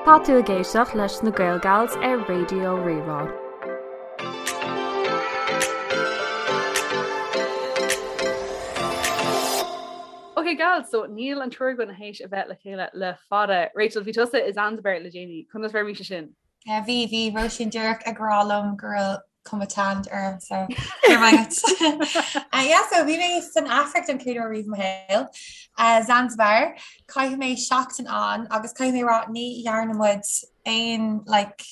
Tá tú ag éisteacht leis na Gaelgals ar Raidió Rí-Rá. Ok gals, so níl an triúr againn théis a bheith le chéile le fada. Rachel, bhí tusa i Zanzibar le déanaí, conas mar bhí sé sin? Yeah, bhí, bhí Róisín díreach ag rá liom go raibh cuma tanned orm so go raibh maith agat. Uh, yeah, so bhí mé san Afraic don chéad uair riamh i mo shaol. Uh, Zanzibar, chaith mé seachtain ann agus caithfidh mé rá ní dhearna muid aon like,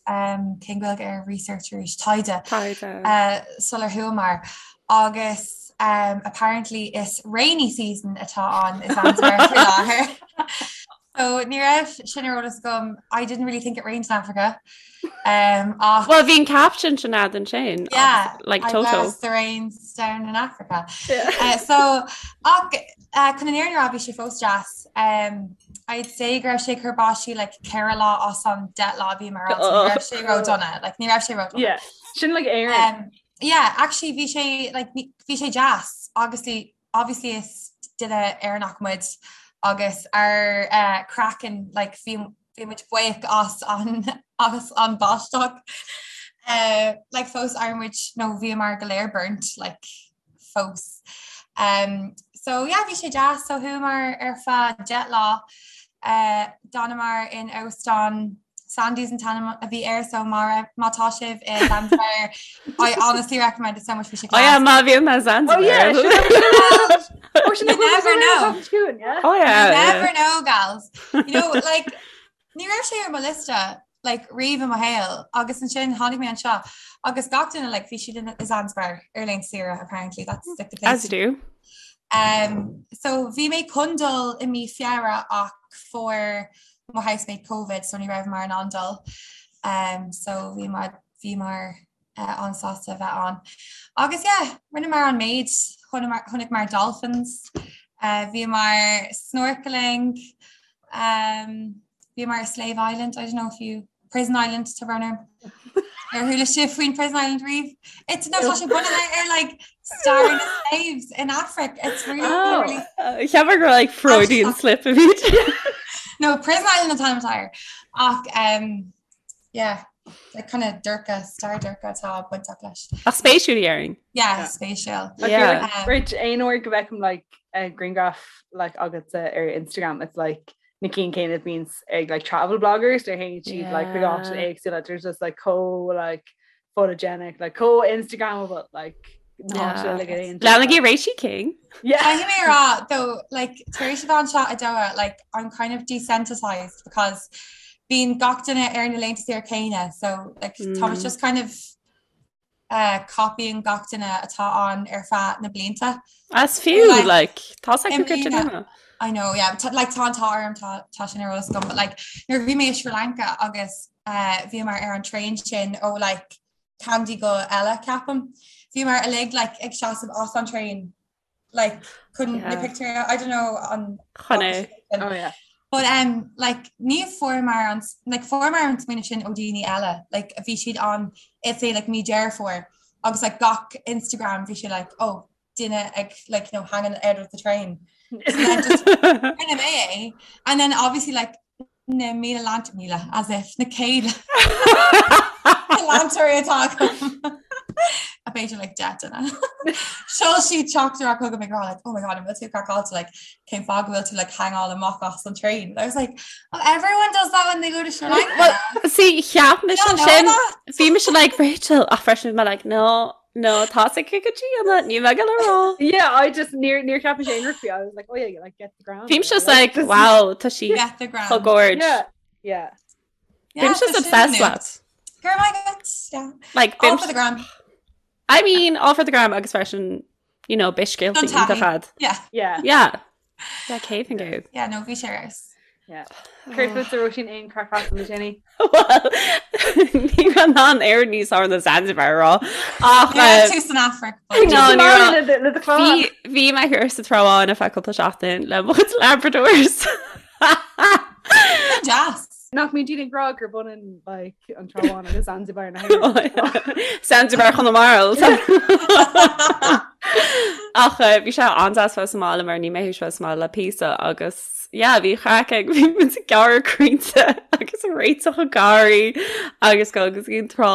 um, cén Ghaeilge ar research arís taighde Taighde. uh, sular chuamar agus um, apparently is rainy season atá ann i Zanzibar faoi láthair. So ní raibh sin ar eolas agam I didn't really think it rained in Africa. Um, ach Well, bhí an caption sin agat ansin. Yeah, like I Toto. bless the rains down in Africa. Uh, so ach uh, chun an fhírinne a rá bhí sé fós deas. Um, I'd say go raibh sé ag cur báistí like 4 lá as an 10 lá a bhíomar ann, so ní raibh sé ró-dona, like ní raibh sé ró-dona. Yeah, sin like Éirinn. Um, yeah, actually bhí sé like ní- bhí sé deas obviously obviously is duine Éireannach muid agus ár eh, craiceann like bhí bhí muid buíoch as an as an báisteach. Eh, like fós ar muid nó bhíomar go léir burnt like fós. Um, so yeah, bhí sé deas so chuamar ar feadh 10 lá eh, d'fhanamar in óstán Sandy's an t-ainm a bhí air so má má tá sibh i Zanzibar I honestly recommend it so much bhí sé Oh yeah, class. má bhíonn mé Zanzibar. Oh yeah, You never know. Oh yeah. You yeah. never know, gals. You know, like, ní raibh sé ar mo liosta like, riamh i mo shaol agus ansin tháinig mé anseo agus gach duine like, bhí siad in i Zanzibar ar laethanta saoire apparently that's like the place As you do. Um, so bhí mé chun dul i mí Feabhra ach fuair mo housemate Covid so ní rabhamar in ann dul. Um, so bhí mar bhíomar uh, an-sásta a bheith ann. Agus yeah, rinneamar an méid chonaiceamar dolphins, uh, bhíomar snorkeling, um, bhíomar Slave Island, I don't know if you Prison Island tá brón orm. Ar chuala sibh faoin Prison Island riamh? It's no tá sé bunaithe ar like stair na slaves in Africa. It's really, Oh. really Cheapfá gur like Freudian slip a bhí. No, Prison Island an t-ainm atá air. Ach um, yeah, like kind of dorcha, stair dorcha atá bainteach leis. Ach spéisiúil déarfainn. Yeah, Yeah. spéisiúil. I feel Yeah. like Um, Rach aon uair go bhfeicim like a grianghraf like agatsa ar Instagram it's like na cinn céanna a bhíonns ag like travel bloggers nuair a théann siad like chuig áiteanna Yeah. éagsúla there's just like chomh like photogenic like chomh Instagrammable like na háiteanna Yeah. uilig a dtéann siad, Leanaigí like. Roisin King. Yeah. Caithfidh mé a rá though like tar éis a bheith anseo i Doha like I'm kind of desensitized because bíonn gach duine ar na laethanta saoire céanna so like tá Mm. just kind of uh, copying gach duine atá ann ar feadh na blianta. As fiú Like, like tá i go mbliana- duine. I know, yeah, but like tá an t-ádh orm tá tá sin ar eolas agam, but like nuair a bhí mé i Sri Lanka agus uh, bhíomar ar an traein sin ó like Kandy go Ella ceapaim. Bhíomar uilig like ag seasamh as an traein like chun na Yeah. pictiúir I don't know an Chun é. Oh yeah. But um like ní fuaireamar an like fuaireamar an smaoineamh sin ó daoine eile like bhí siad ann it's say like mí Deireadh Fómhair agus like gach Instagram bhí sé like oh duine ag like you know hanging out of the train. So then just rinne mé é and then obviously like na míle leant míle as if na céad leantóirí atá agam. A b'fhéidir like deich duine. Sheol siad teachtaireacht chugam ag rá like oh my god an bhfuil tú craiceáilte like cén fáth go bhfuil tú like hangáil amach as an train. I was like oh everyone does that when they go to Sri Lanka. Well, see cheap mise You don't know sin that? bhí mise like Rachel ach freisin bhí mé like no no tá sé go dtí an ní me go rá. Yeah, I just níor níor cheap mise aon rud faoi. I was like, oh yeah, like get the gram. Bhí mise like wow tá sí Get the gram. chomh gorge. Yeah, yeah. Yeah, Bhí mise tá sin obsessed nuacht. leat. Go raibh maith agat, yeah. Like All bhí for the gram. I mean all for the gram agus freisin you know beidh scéalta Don taithí. iontach agat. Yeah. Yeah. Yeah. Yeah, céad faoin gcéad. Yeah, no, bhí sé ar fheabhas. Yeah. Céard fútsa Róisín aon craic as le déanaí? Well, ní raibh an air níos fearr ná Zanzibar rá. Ach Ní raibh tú san Afraic. but- No, ní raibh. Le do chlann. Bhí bhí mé thiar sa Trá Bháin ar feadh cúpla seachtain le mo chuid Labradors. Deas. Nach mbíonn daoine ag rá gur b'ionann like an Trá Bháin agus Zanzibar na hÉireann. Zanzibar Chonamara. Ach eh, bhí sé an-deas bheith sa mbaile mar níl mé théis bheith sa mbaile le píosa agus yeah, bhí craic ag bhí muid ag gearradh crainnte agus ag réiteach an garraí agus go agus an trá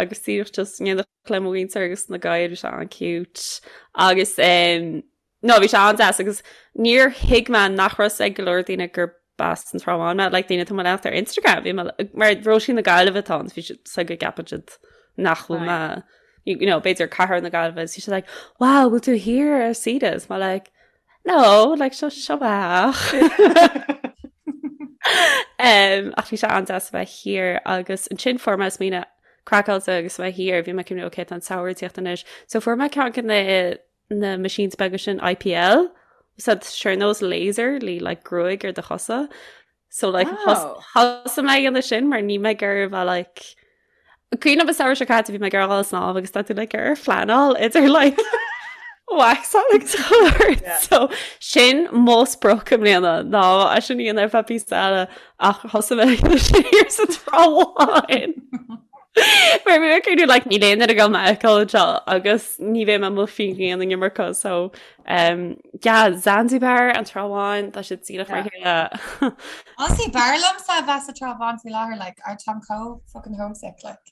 agus díreach just in éineacht le mo mhuintir agus na gadhair bhí sé an-cute agus um, No, bhí sé an-deas agus níor thuig mé nach raibh ag go leor daoine gur b'as an Trá Bháin mé, like daoine atá mo leanacht ar Instagram, bhí mé mar Róisín na Gaillimhe atá ann, bhí siad so go gceapann siad nach bhfuil mé, you know, b'fhéidir cathair na Gaillimhe, bhí siad like, wow, bhfuil tú thiar ar saoire? Is mé like, no, like seo seo ach. Um, ach bhí sé an-deas a bheith thiar agus ansin fuair mé smaoineamh craiceáilte agus a bheith thiar, bhí mé ag cuimhneamh, okay, tá an samhradh ag tíocht anois. So fuair mé ceann de na na machines beaga sin IPL so sé ar nós laser le like gruaig ar do chosa so like oh. thosaigh mé ag déanamh sin mar níl mé ag iarraidh bheith like Cuimhin liom an samhradh seo caite bhí mé ag dul ag snámh agus tá tú like ar phleanáil idir like waxáil agus chuir yeah. so sin mo sprioc i mbliana ná é sin a dhéanamh ar feadh píosa eile ach thosaigh mé ag sin thiar sa Trá Bháin. Mar bhí mé ag cuimhneamh like níl aon duine ag dul mé a fheiceáil anseo agus ní bheidh mé amuigh faoin ghrian an iomarca so um, yeah, Zanzibar an Trá Bháin tá siad díreach mar chéile. Honestly, b'fhearr liomsa a bheith sa Trá Bháin faoi láthair like ar táim chomh fucking homesick like.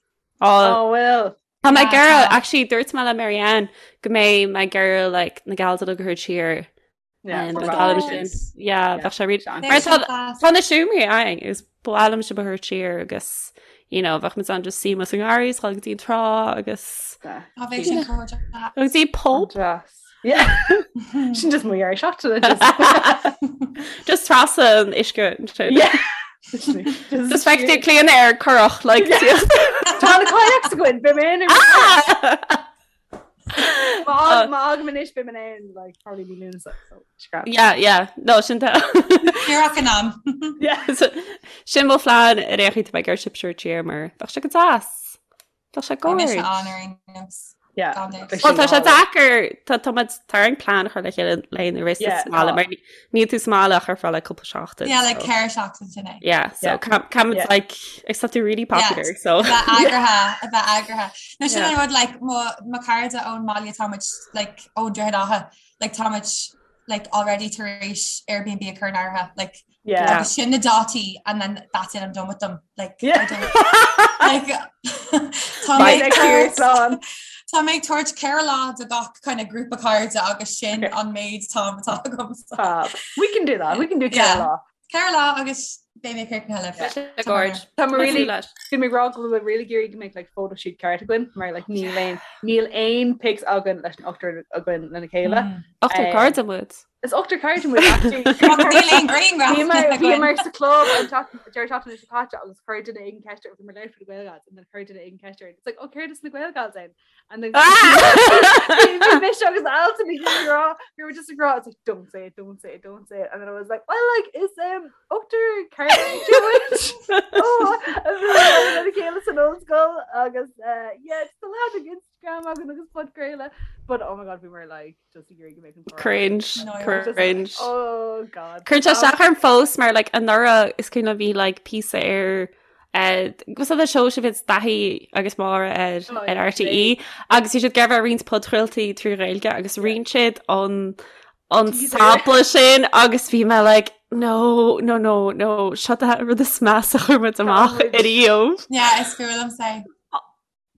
Oh well. Tá mé ag iarraidh actually dúirt mé le Marianne go mbeidh mé ag iarraidh like na gals a thabhairt siar Bheadh sé Tá na seomraí againn is ba mhaith liom sibh a thabhairt siar agus you know, bheadh muid an just suí sa ngarraí is go dtí an trá agus go dtí pub. Sin just mo dhear seachtaine Just trasna an uisce Just feictear Clíona ar curach like Tá na kayaks againn, beidh mé in Má fhágaim anois beidh mé in like probably mí Lúnasa so scrap. Yeah, yeah. No, sin tá. Díreach in am. Yeah, so, sin mo phlean ar aon chaoi tá mé ag iarraidh sibh a thabhairt siar mar bheadh sé go deas. Bheadh sé Bhí mise gorge. ann ar aon nós. Yeah. Gan dabht. Bheadh Well, sin tá sé go hálainn. deacair tá tá muid tá orainn plean a chur le chéile le na rith Yeah, sa mbaile tá. mar ní- níl tú sa mbaile ach ar feadh like cúpla seachtain. Yeah, like so. ceithre seachtain sin é. Yeah, so Yeah. cam cam Yeah. like except they're really Yeah, popular, so a bheith yeah. eagraithe, a bheith eagraithe. No sin Yeah. an rud like mo mo chairde ón mbaile tá muid like ó Droichead Átha like tá muid like already tar éis Airbnb a chur in áirithe like Yeah. agus sin na dátaí and then that's it I'm done with them like Yeah. I don't like tá mé Bye ag next year, tabhairt slán. Tá mé ag tabhairt 4 lá do gach kind of grúpa cairde agus sin Okay. an méid time atá agam so. Fab. We can do that. We can do Yeah. ceithre lá. 4 lá agus beidh mé críochnaithe libh. Yeah. Sé gorge. Tá mé really leis. Bhí mé ag rá go bhfuil mé really ag iarraidh go mbeadh like photo shoot ceart againn mar like níl aon níl aon pics againn leis an ochtar againn lena chéile. Mm. Ochtar Um, cairde muid. Is ochtar cairde muid actually. Ach níl aon grianghraf Bhíomar againn. bhíomar sa club an deireadh seachtaine seo caite agus chuir duine éigin ceist ar bhí mar leir for the Gael Gals and then chuir duine éigin ceist ar it's like oh céard is na Gael Gals ann and then bhí mise agus Alton ag rá we were just ag rá it's like don't say it don't say it don't say it and then I was like well like is um ochtar cairde muid oh a bhí lena chéile san ollscoil agus uh, yeah it's the lad ag Instagram againn agus podchraoladh but oh my god we were like just ag iarraidh go mbeadh an comhrá. Cringe, No, I was just like, cringe. oh god Cuireann sé isteach orm fós mar like anuraidh is cuimhin liom bhí like píosa ar Was that the show sin bhí Daithí agus Máire ar Oh, ar yeah, RTÉ agus bhí siad ag iarraidh roinnt podchraoltaí trí Ghaeilge agus roinn siad an an Teaser. sampla sin agus bhí mé like no no no no seo an rud is measa a chuir muid amach muid. ariamh. Yeah, is fuath liomsa é.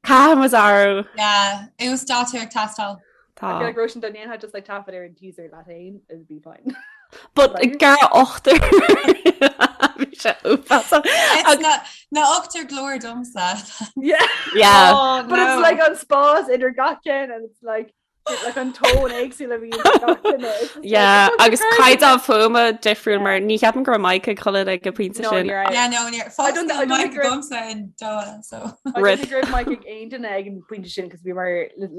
Caithfidh muid athrú. Yeah, uasdátú ag teastáil. Tá. I feel like Róisín dá ndéanfá just like taifead ar an teaser leat féin, it'd be fine. But Like- gar ochtar. Bhí sé uafásach. It's Ag- na na ochtar glór domsa. Yeah. Yeah. Oh, But it's no. like an spás idir gach ceann and it's like like an tone éagsúil a bhíonn ag gach duine. It's just like, Yeah, it's agus such a crazy- caighdeán fuaime difriúil mar ní cheapaim go raibh mic ag chuile ag an bpointe No, sin. ní raibh. Yeah, no, ní I fós don't- níl I don't mic think we're- agamsa in Doha, so. I Rip. don't think go raibh mic ag aon duine ag an bpointe sin cos bhí mar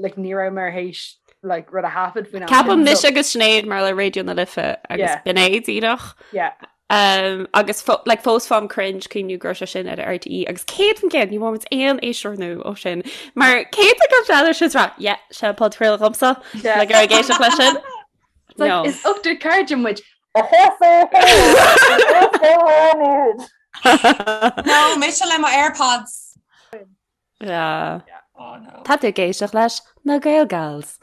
like ní raibh mar théis like rud a thaifead faoin am Ceapaim sin, mise so- agus Sinéad mar le Raidió na Life agus Yeah. b'in é díreach. Yeah. Um, agus fo like, fós faighim cringe cuimhniú go raibh sé sin ar RTÉ agus 100% ní bhfuair muid aon éisteoir nua ó sin. Mar céad go bhfeadar sin rá, yeah, sé podchraoladh dhomsa Yeah. le gur ag éisteacht leis sin. It's like, No. is ochtar cairde muid. No, mise le mo AirPods. Yeah. Oh no. Tá tú ag éisteacht leis na Gael Gals.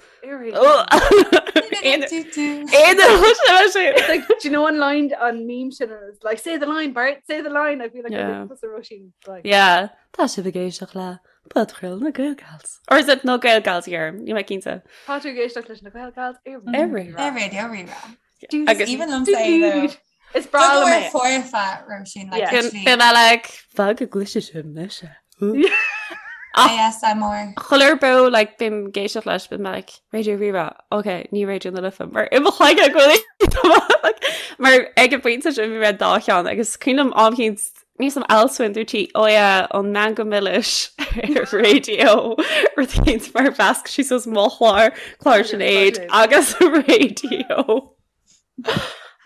It's like, do you know an line an meme sin is like say the line Bart say the line I feel like Yeah. yeah. Róisín like Yeah, tá sibh ag éisteacht le podchraoladh na Gael Gals. Or is it na Gael Gals here? Níl mé cinnte. Tá tú ag éisteacht leis na Gael Gals ar Ar Rírá. Ar Raidió Rí-Rá. Agus- Even liom say though. Is breá liom é. foirfe Róisín like Yeah. actually Bím like fág go gcloisfidh sibh mise. ASMR. Chuile beo like bím ag éisteacht leis bím like Raidió Rí-Rá, ok, ní Raidió na Life mar i mo chloigeann go bhfuil like, mar ag an bpointe sin bhí mé dá cheann agus cuimhin liom am éicint níos am Alswyn dúirt sí oh yeah an Meangadh Milis ar raidió rud éicint mar mheasc sí suas mo chlár clár Sinéad agus raidió.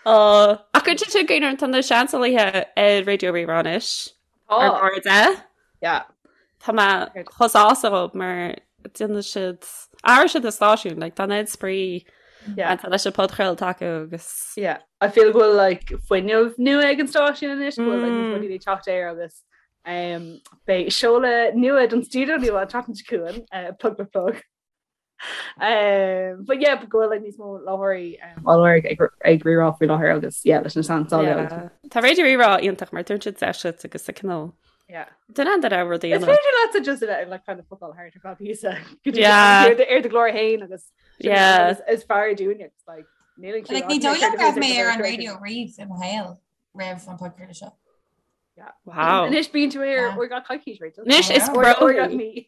Uh, ach go dtí go tá na seansálaithe ar Raidió Rí-Rá anois ar Tá. bord é. Yeah. Tá mé chomh sásta dhób mar déanann siad athraigh siad na stáisiún like, tá an spraoi Yeah. tá leis an podchraoladh acu agus Yeah. I feel go bhfuil like fuinneamh nua ag an stáisiún anois go bhfuil like, Mm. rudaí ag teacht air agus um, beidh seoladh nua don stiúideo nua an tseachtain seo chugainn uh, plug plug plug. Um, but yeah, go bhfuil like, níos mó láithreoirí um, á lorg ag ag Rí-Rá faoi láthair agus yeah, leis na seansálaithe agus- Yeah. Tá Raidió Rí-Rá iontach mar tugann siad deis duit agus a cineál Yeah. Duine an raibh rudaí Is féidir leatsa just a bheith like kind of fuckáil thart ar feadh píosa go dtí Yeah. ar do- ar do ghlór féin agus sin Yeah. is- is fearr dúinne it's like níl an Like ní dóigh liom go raibh mé ar an raidió riamh i mo shaol roimh an podchraoladh seo. Wow. Anois bíonn tú ar Yeah. uair gach coicís Rachel. Anois is Yeah. Uair- pro uair gach mí.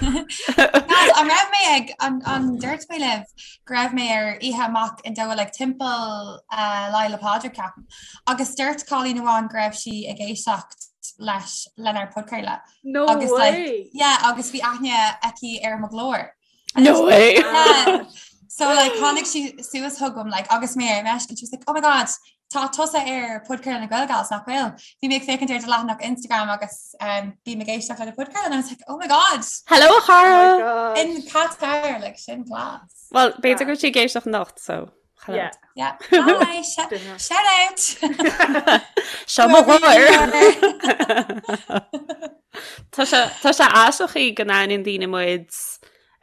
Guys, an raibh mé ag an an dúirt mé libh go raibh mé ar oíche amach in Doha like timpeall uh, Lá Fhéile Pádraig ceapaim. Agus dúirt cailín amháin go raibh sí ag éisteacht leis lenár podchraoladh. No Agus, like, way. Yeah, agus bhí aithne aici ar mo ghlór. No way. Yeah. So like tháinig sí suas chugam like agus mé ar meisce and she was like, oh my god, tá tusa ar podchraoladh na Gael Gals nach bhfuil. Bhí mé ag féachaint ar do leathanach Instagram agus um, bím ag éisteacht le do podchraoladh and I was like, oh my god, Hello a Oh my chara. God. in Qatar like sin class. Well, b'fhéidir go bhfuil sí ag éisteacht anocht, so hello. Yeah. Yeah. Hi, sh Duine. shout out. Seo mo Whoever you ghlór. are. Tá sé tá sé aisteach go n-aithníonn daoine muid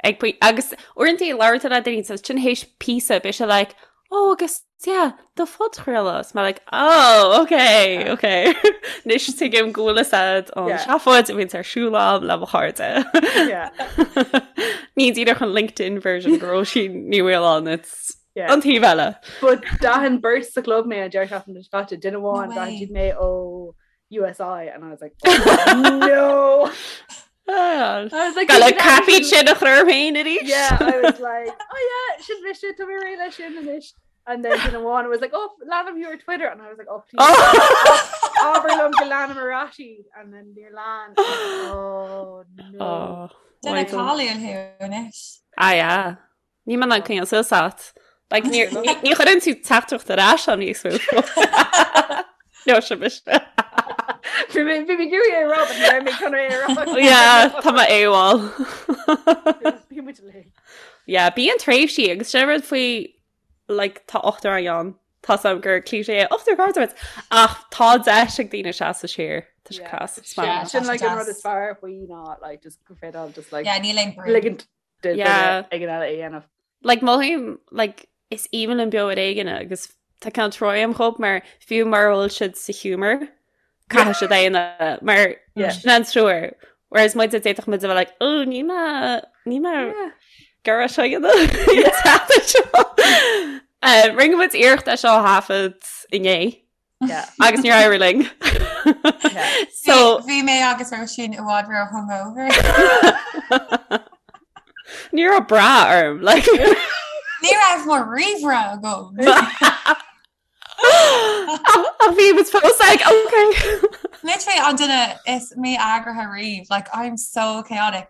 ag poi- agus uaireanta labhraíonn tú le daoine so sin théis píosa beidh sé like oh agus yeah do phodchraoladh is mé like oh okay okay Anois tuigim go bhfuil fhios a'd an Yeah. seafóid a bhíonns ar siúl a'm le mo chairde. Yeah. Ní díreach an LinkedIn version de Róisín Ní Mhaoláin it's Yeah. an taobh eile. But d'aithin beirt sa club mé an deireadh seachtaine seo caite duine amháin No d'aithin way. siad mé ó USI and I was like oh, no Ah, I was like Gal "You can caifí actually- sin a chur féin arís. Yeah, I was like, oh yeah, sin mise tá mé réidh leis sin anois. And then duine amháin was like, oh, leanaim thú ar Twitter. And I was like, oh, please. Oh. Abair liom go leanaim ar ais iad. And then níor lean. Oh, no. Oh, Duine why don't- cáiliúil thú anois. Ah, yeah. Níl mé in ann coinneáil suas ort. Like, ní ní- ní chuireann tú teachtaireacht ar ais am níos mó. No, sin mise. Bhí mé bhí mé ag iarraidh é a rá, but ní raibh mé chun é a rá. Yeah, tá mé AWOL. Bhí muid uilig. Yeah, bíonn tréimhsí agus sin rud faoi like, tá ochtar againn ann. Tá am gur cliché é ochtar cairde ach tá deis ag daoine seasamh siar. Tá sé Yeah. class. Yeah. Sin like an rud deas. is fearr faoi ná like just go féidir just like Yeah, níl aon brú. ligint do Yeah. duine éigin eile é a dhéanamh. Like mothaím like is aoibhinn liom beo ar éigean agus tá ceann troim chomh mar fiú mura bhfuil siad sa humour caithfidh siad é a dhéanamh mar Yeah. sin an treoir. Whereas muid d'fhéadfadh muid a bheith like oh ní mé ní mé Yeah. gar seo dhéanamh. Eh, Rinne muid iarracht é seo a thaifead inné Yeah. agus níor éirigh linn. Yeah. So Bhí mé agus Róisín i bhfad ró hungover. ní raibh bra orm like Ní raibh mo ríomhaire agam. Ach bhí muid fós like okay. Literally an duine is mí-eagraithe riamh, like I'm so chaotic.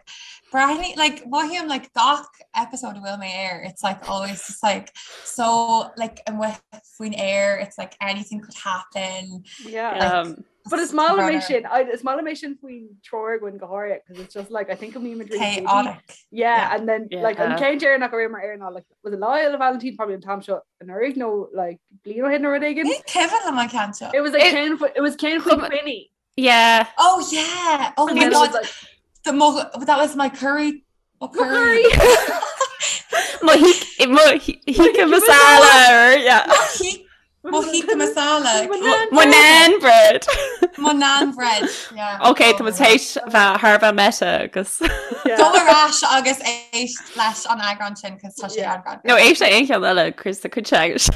Breathnaigh like mothaím like gach episode a bhfuil mé air, it's like always just like so like amuigh faoin aer, it's like anything could happen. Yeah. Like, But is maith liom é runner. sin I- is maith liom é sin faoin triúr againn go háirithe because it's just like I think go mbímid really busy. Chaotic. Yeah, Yeah. and then like an Yeah. ceann deireanach a raibh ar ná like was it Lá Fhéile Vailintín probably an t-am seo anuraidh nó like bliain ó shin nó rud éigin. Ní cuimhin liom an ceann seo. It was like It- ceann it was ceann faoi Chum- Quinny. Yeah. Oh yeah! Oh And my then it was god. like. The mo that was my curry mo curry. Mo tikka masala yeah. Mo tikka masala. Mo naan bread. Mo naan bread. Yeah. Ok tá muid théis bheith thar bheith meta agus. Go ar ais agus éist leis an eagrán sin cos tá sé an No éist le aon cheann eile Chris tá cuid agus.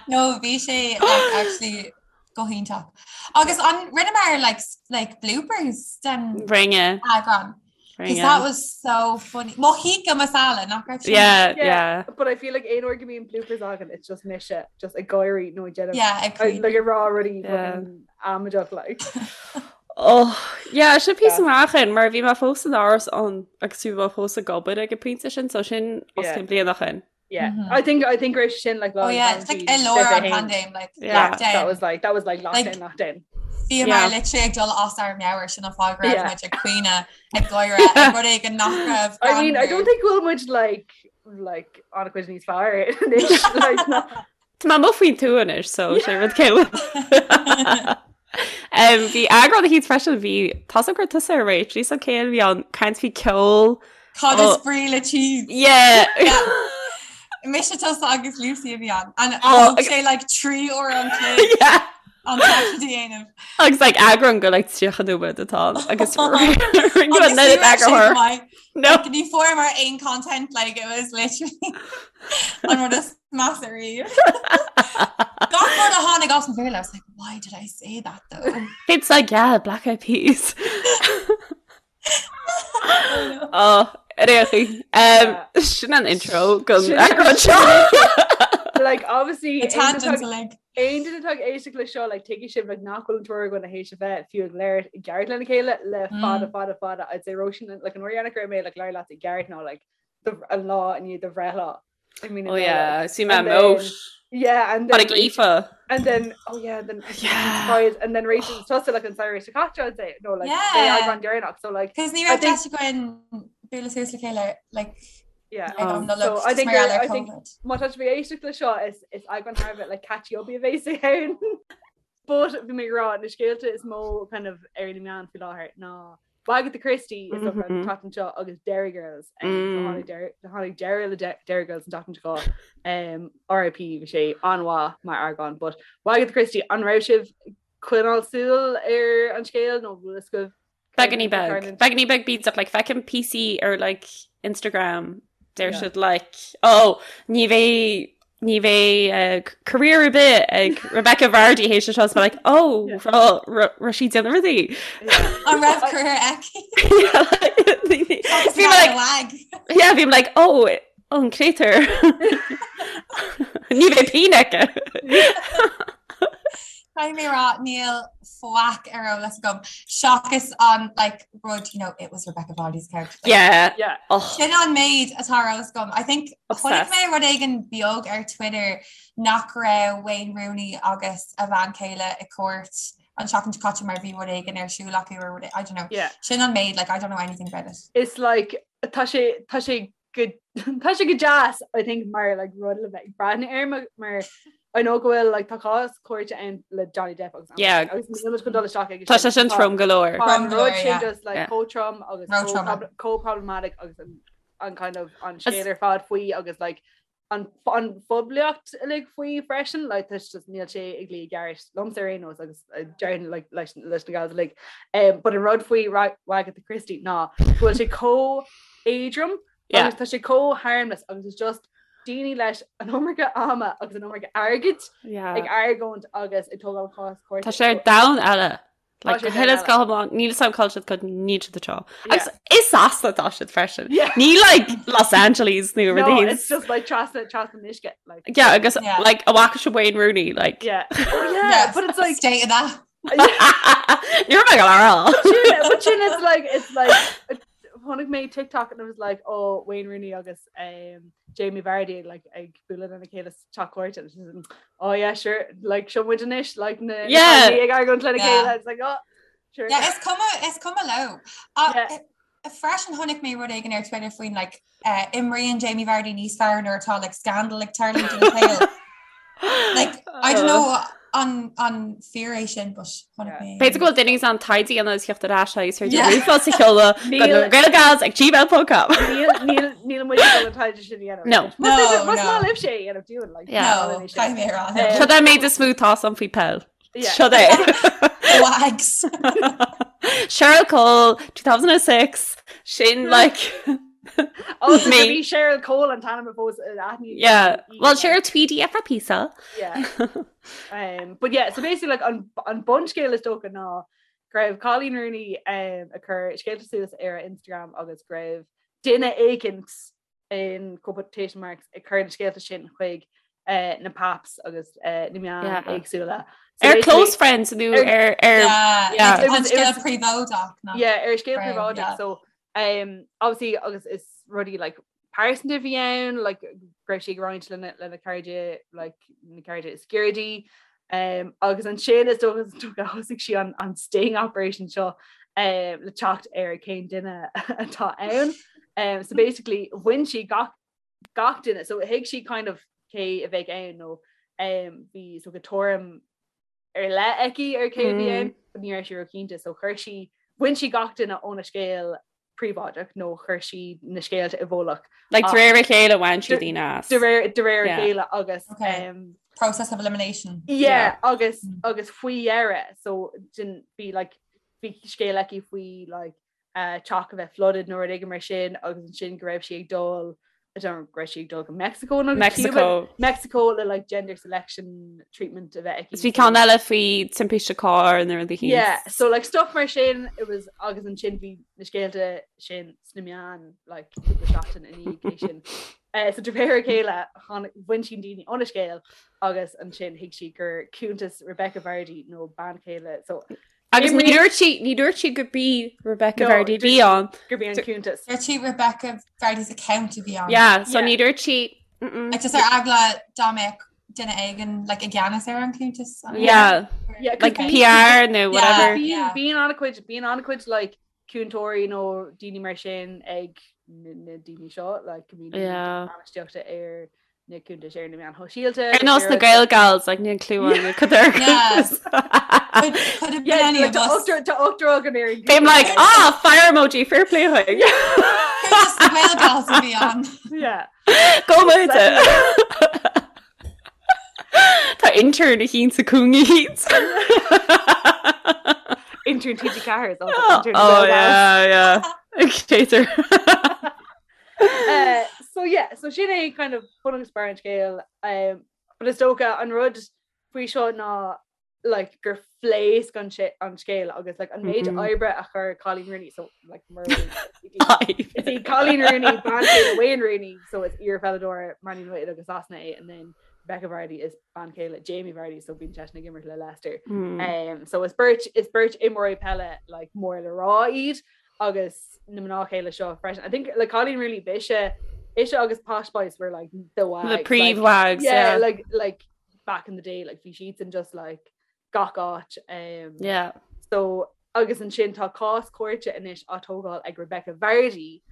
No bhí sé like, actually go hiontach. Agus an rinneamar like, like bloopers den Rinne. eagrán. Because that was so funny. Mo tikka masala nach raibh sin? Yeah, yeah. But I feel like aon uair go mbíonn bloopers againn, it's just mise just ag gáirí nó ag déanamh Yeah, ag caoineadh. like ag rá rudaí Yeah. fucking amaideach like. Oh, yeah, sin píosa Yeah. amach in, mar bhí mé fós in Áras an agus bhí mé fós ag obair ag an bpointe sin, so sin os Yeah. cionn bliain ó shin. Yeah. Mhm. I think I think raibh sin like Oh yeah, it's like i lár an paindéim like Yeah. lockdown. That was like that was like Like- lockdown lockdown. Bhíomar Yeah. literally ag dul as ár meabhair sin an fáth go raibh Yeah. muid ag caoineadh ag gáire ag rud éigin nach raibh I mean, I greannmhar. don't think we'll much like like on a cuid níos fearr anois, like, no. Tá mé amuigh faoin tuath anois, so sé rud céile. Um, bhí eagrán eicínt freisin bhí tá gur tusa ar réit, bhí céil bhí an caint faoi ceol. Cad is Oh. brí le cheese? Yeah. Mise tusa agus Lucy a bhí ann. And Oh, thóg sé like 3 uair an chloig Yeah. an taifead a dhéanamh. Agus like eagrán go like 30 nóiméad atá ann agus Agus rinne ní an raibh sé eagarthóir. maith. No. Like, ní fuaireamar aon content like it was literally an rud is measa riamh. Gach rud a tháinig as mo bhéal, I was like, why did I say that though? It's like yeah, Black Eyed Peas. Oh, réchaí. Um, sin an intro go Sin- eagrán seo. Like obviously The tangents like aon duine atá ag éisteacht le seo like tuigfidh sibh like nach bhfuil an triúr againn théis a bheith fiú ag labhairt i gceart lena chéile le fada Mm. fada fada I'd say Róisín like an uair dheireanach go raibh mé like labhairt leat i gceart ná like the an lá i ndiaidh do bhreithlá. I mean, Oh yeah, see my And then- moat. Yeah, and then Tháinig Aoife. and then oh yeah, then Yeah. surprise, and then Rachel tusa like an samhradh seo caite I'd say no like Yeah. eagrán deireanach so like Cos ní I raibh think- deis againn bualadh suas le chéile like yeah. ag Oh. an Nollaig So I just think mar gheall ar I think- COVID. Má tá sibh ag éisteacht le seo is is eagrán thar a bheith like catchy up a bheas ann. But bhí mé ag rá na scéalta is mó kind of ar na meáin faoi láthair ná Wagatha Christie is mm Mhm. -hmm. tseachtain seo agus Derry Girls um, so Mm. tháinig Derry- tháinig deireadh le De- Derry Girls an tseachtain seo um, RIP bhí sé an-mhaith mar eagrán but Wagatha Christie an raibh sibh ag coinneáil súil ar an scéal nó bhfuil a fhios agaibh Beagán beag. Beagán beag beats up like feicim píosaí ar like Instagram deir Yeah. siad like oh ní bheidh ní bheidh uh, career ar bith ag Rebecca Vardy théis seo so like oh Yeah. raibh sí ag déanamh rudaí. An raibh career aici? Yeah, like, Bhí mé like wag. yeah bhí mé like oh an créatúr Ní bheidh pingin aici. Caithfidh mé rá níl faic ar eolas agam seachas an like rud you know it was Rebecca Vardy's couch. Like, Yeah. Yeah. Oh, Sin an méid atá ar eolas agam. I think chonaic Obsessed. mé rud éigin beag ar Twitter nach raibh Wayne Rooney agus a bhean chéile i cúirt an tseachtain seo caite mar bhí rud éigin ar siúl acu or rud- I don't know. Yeah. Sin an méid like I don't know anything about it. It's like tá sé tá sé go tá sé go deas I think mar like rud le bheith ag breathnú air mar mar I know go bhfuil like tá cás cúirte ann le Johnny Depp agus Yeah. agus níl muid chun dul isteach ag Tá sé sin trom go leor. Tá an Trom go leor, rud sin yeah. just like Yeah. chomh trom agus Ró-trom. chomh chomh problematic agus an an kind of an As- scéal ar fad faoi agus like an an phoiblíocht uilig faoi freisin like tá just níl sé ag luí i gceart liomsa ar aon nós agus uh, déarfainn like leis leis na gals uilig um, but an rud faoi Wagatha Christie ná go bhfuil sé chomh éadrom Yeah. agus tá sé chomh harmless agus it's just daoine leis an iomarca ama agus an iomarca airgid Yeah. ag argóint agus ag tógáil cás cúirte. Tá sé ar domhan eile. Tá Like, sé go huile is domhan go hiomlán, níl a fhios agam cá bhfuil siad cad níl siad anseo. Yeah. Agus i Sasana atá siad freisin. Yeah. Ní like Los Angeles nó No, rudaí. it's just like trasna trasna an uisce like Yeah, agus Yeah. like an bhfaca sibh Wayne Rooney like yeah. Oh yeah, but it's like state of that. Ní raibh mé ag rá. But but sin it's like it's like chonaic mé TikTok and it was like oh Wayne Rooney agus um, Jamie Vardy like ag bualadh lena chéile sa teach cúirte and she's like, oh yeah sure like seo muid anois like na na Yeah. cailíní ag argóint lena Yeah. chéile it's like oh sure Yeah, is cuma is cuma leo. Uh, Yeah. Freisin chonaic mé rud éigin ar Twitter faoin like uh, imríonn Jamie Vardy níos fearr nuair atá like scandal ag tarlú ina shaol. Like I don't know. an an fíor é sin but chonaic mé. B'fhéidir go bhfuil duine in ann taighde a dhéanamh agus theacht ar ais agus féidir ríomhphost a sheoladh go na Gaelgals ag gmail.com. Níl níl muid ag dul an taighde sin a dhéanamh. No. Más No, más no. maith libh sé a dhéanamh dúinn like. Yeah. No, caithfidh mé a rá. Eh, Seo é an méid is mó atá agam faoi peil. Yeah. Seo é. Wags. Cheryl Cole 2006 sin like Oh, so Me. bhí Cheryl Cole an t-ainm a fós aithní. yeah. Well Cheryl Tweedy for pizza. Yeah. Um, but yeah, so basically like an, an bunscéal is dócha ná go raibh Coleen Rooney um, ag cur scéalta suas ar a Instagram agus go raibh duine éicint in quotation marks ag cur na scéalta sin chuig uh, na paps agus uh, na meáin Yeah. éagsúla. So Ar basically- close friends nó Ar- ar ar Yeah, yeah. like, It an was- it scéal was- príobháideach ná. yeah, ar scéal Right, príobháideach yeah. so um, obviously agus is rudaí like pearsanta a bhí ann like go raibh sí ag roinnt lena lena cairde like na cairde is gaire di um, agus ansin is dócha is dócha thosaigh sí an an sting operation seo um, le teacht ar cén duine atá ann. Um, so basically bhain sí gach gach duine so thuig sí kind of cé a bheadh ann nó um, bhí so go tuairim ar leith aici ar cé a bhí ann, but ní raibh sí róchinnte so chuir sí bhain sí gach duine óna scéal príobháideach nó chuir sí na scéalta i bhfolach. Like de réir a chéile bhain sí daoine as. De réir de réir a Yeah. chéile agus Okay. um, Process of elimination. yeah, agus Mm. agus faoi dheireadh so din bhí like bhí scéal aici faoi like uh, teach a bheith flooded nó rud éigin mar sin agus ansin go raibh sí ag dul I don't know, go raibh sí ag dul go Mexico nó go Cuba Mexico. Mexico le like gender selection treatment a bheith aici. Is bhí ceann eile faoi timpiste cairr nó rud éicint. Yeah, so like stuff mar sin it was agus ansin bhí na scéalta sin sna meáin like cúpla seachtain i ndiaidh sin. Uh, so de réir a chéile tháinig- bhain sí daoine óna scéal agus ansin thuig sí gur cuntas Rebecca Vardy nó bean chéile so Agus ní dúirt sí ní dúirt sí gurb í Rebecca No, Vardy dúirt bhí sí- ann. gurb í an cuntas. Dúirt sí Rebecca Vardy's account a bhí ann. Yeah, so Yeah. ní dúirt sí mm-mm. Like just ar eagla dá mbeadh duine éigin like i gceannas ar an cuntas. an- Yeah, Yeah, 'cause like bíonn- PR nó whatever. Bíonn Yeah. bíonn an-chuid bíonn an-chuid like cúntóirí nó daoine mar sin ag na na daoine seo like go mbíonn daoine Yeah. bainistíochta ar na cuntais ar na meáin shóisialta. Ar nós na Gaelgals like níl clue an cad ar Yeah. cuntas. Could, could have been Yeah, any like of tá us. ochtar tá ochtar againn ar an Bím like ah fire emoji fair play chuig. Cuntas na Gaelgals a bhí ann. Yeah. Go muide. Tá intern éicint sa cúinne éicint. Intern TG4 is also Oh intern Gaelgals. yeah, yeah. Chaser. Uh, so yeah, so sin é kind of bun agus barr an scéil um, but is dócha an rud faoi seo ná like gur phléasc an sé- an scéal agus like an méid Mhm. oibre a chuir Coleen Rooney so like mar Is í Coleen Rooney bean chéile Wayne Rooney so is iarpheileadóir Man United agus Sasana é and then Rebecca Vardy is bean chéile Jamie Vardy so bíonn seisean ag imirt le Leicester. Mm. Um, so is beirt is beirt imreoirí peile like mór le rá iad agus na mná chéile seo freisin. I think like Coleen Rooney b'ise ise agus Posh Spice were like the wags. The like, príomh-wags, yeah, yeah. like like back in the day like bhí siadsan just like gach áit. Um, Yeah. So agus ansin tá cás cúirte anois á tógáil ag Rebecca Vardy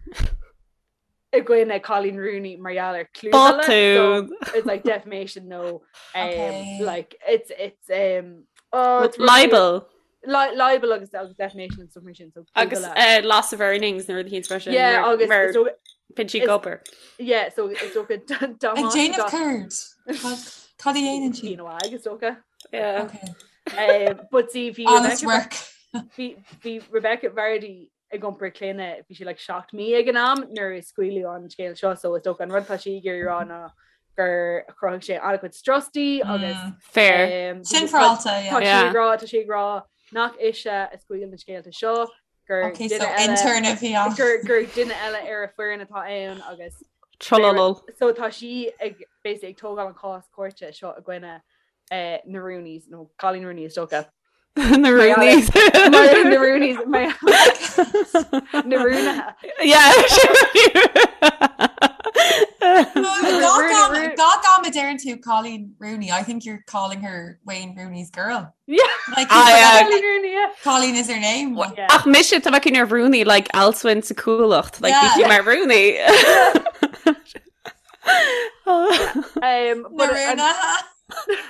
i gcoinne Coleen Rooney mar gheall ar clúmhilleadh. So Botún. it's like defamation no um, Okay. like it's it's um oh, it's Libel. Li libel agus agus defamation and stuff mar sin so Agus clúmhilleadh. uh, loss of earnings nó rud éicint freisin. yeah agus mar is dócha- bíonn sí is- ag obair. yeah so is dócha Ag déanamh céard. Cad cad a dhéanann sí? Bíonn agus dócha Yeah. Okay. um, but see bhí Honest Rebecca work. bhí bhí Rebecca Vardy ag iompar clainne bhí sí like 7 mí ag an am nuair a scaoileadh an scéal seo so is dócha an rud atá sí ag iarraidh a rá ná gur chruthaigh sé an-chuid strus di agus Mm. Fair. um, Sin tá féaráilte, yeah. sí Yeah. ag rá tá sí ag rá nach ise a scaoil na scéalta seo gur Okay, duine so eile intern a bhí ann. gur gur duine eile ar a foireann atá ann agus Trololol. so tá sí ag basically ag tógáil an cás cúirte seo i gcoinne eh, na Rooneys nó Coleen Rooney is dócha. Na Rooneys. Mar- na Rooneys mar- na Rúnaithe. Yeah. Rooney- Gach am a deireann tú Coleen Rooney, I think you're calling her Wayne Rooney's girl. Yeah. Like, Ah, yeah. Coleen Rooney, yeah. Coleen is her name. Yeah. Ach mise tá mé ar Rooney like Alswyn sa Cuallacht like Yeah. bhí sí mar Rooney. Um, Na but an- Rúnaithe.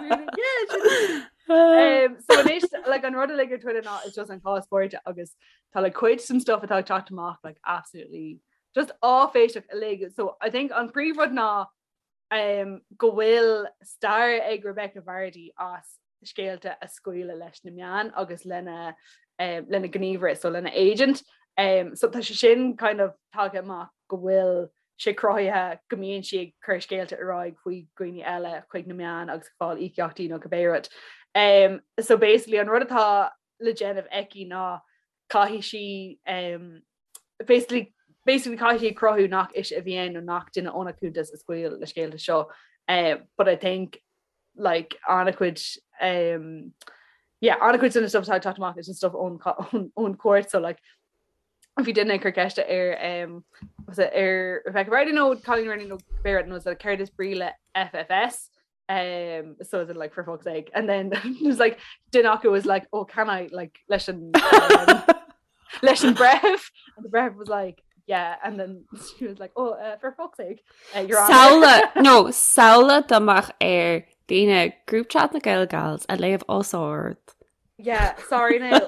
Yeah, sin- Um, so anois like an rud uilig ar Twitter ná is just an cás cúirte agus tá like cuid den stuff atá ag teacht amach like absolutely just áiféiseach uilig. So I think an príomhrud ná um, go bhfuil stair ag Rebecca Vardy as scéalta a scaoileadh leis na meáin agus lena um, lena gníomhaire, so lena agent. Um, so tá sé sin kind of tagtha amach go bhfuil sé cruthaithe go mbíonn sí ag cur scéalta ar aghaidh faoi dhaoine eile chuig na meáin agus ag fáil íocaíochtaí nó cibé rud. Um, so basically an rud atá le déanamh aici ná caithfidh sí um, basically basically caithfidh sí cruthú nach ise a bhí ann nó nach duine óna cuntas a scaoil na scéalta seo. Uh, but I think like an-chuid um, yeah, an-chuid den stuff atá ag teacht amach is an stuff ón ón ón cúirt so like bhí duine ag cur ceiste ar um, was it ar Rebecca Vardy nó Colleen Rooney nó cibé rud nó is céard is brí le FFS um, so is it like for fuck's sake and then it was like duine acu was like oh can I like leis an um, leis an breitheamh and the breitheamh was like yeah and then she was like oh uh, for fuck's sake uh, you're on Samhlaigh no samhlaigh dá mbeadh ar daoine group chat na Gael Gals a léamh os ard. Yeah, sorry now.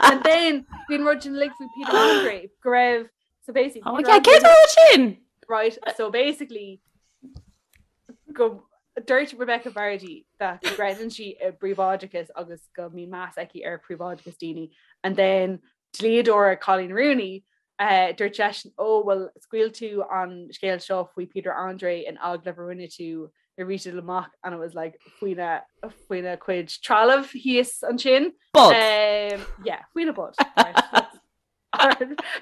And then bhí an rud sin uilig faoi Peter Andre go raibh so basically Oh, Peter yeah, céard Andre- rud sin? right so basically go dúirt Rebecca Vardy that go gcreideann sí i bpríobháideachas agus go mbíonn meas aici ar phríobháideachas daoine and then dlíodóir Colleen Rooney uh, dúirt seisean ó well scaoil tú an scéal seo faoi Peter Andre in agallamh a rinne tú nuair a bhí sé amach and it was like faoina faoina cuid trealamh thíos ansin. Bod. Um, yeah, faoina bod. Right.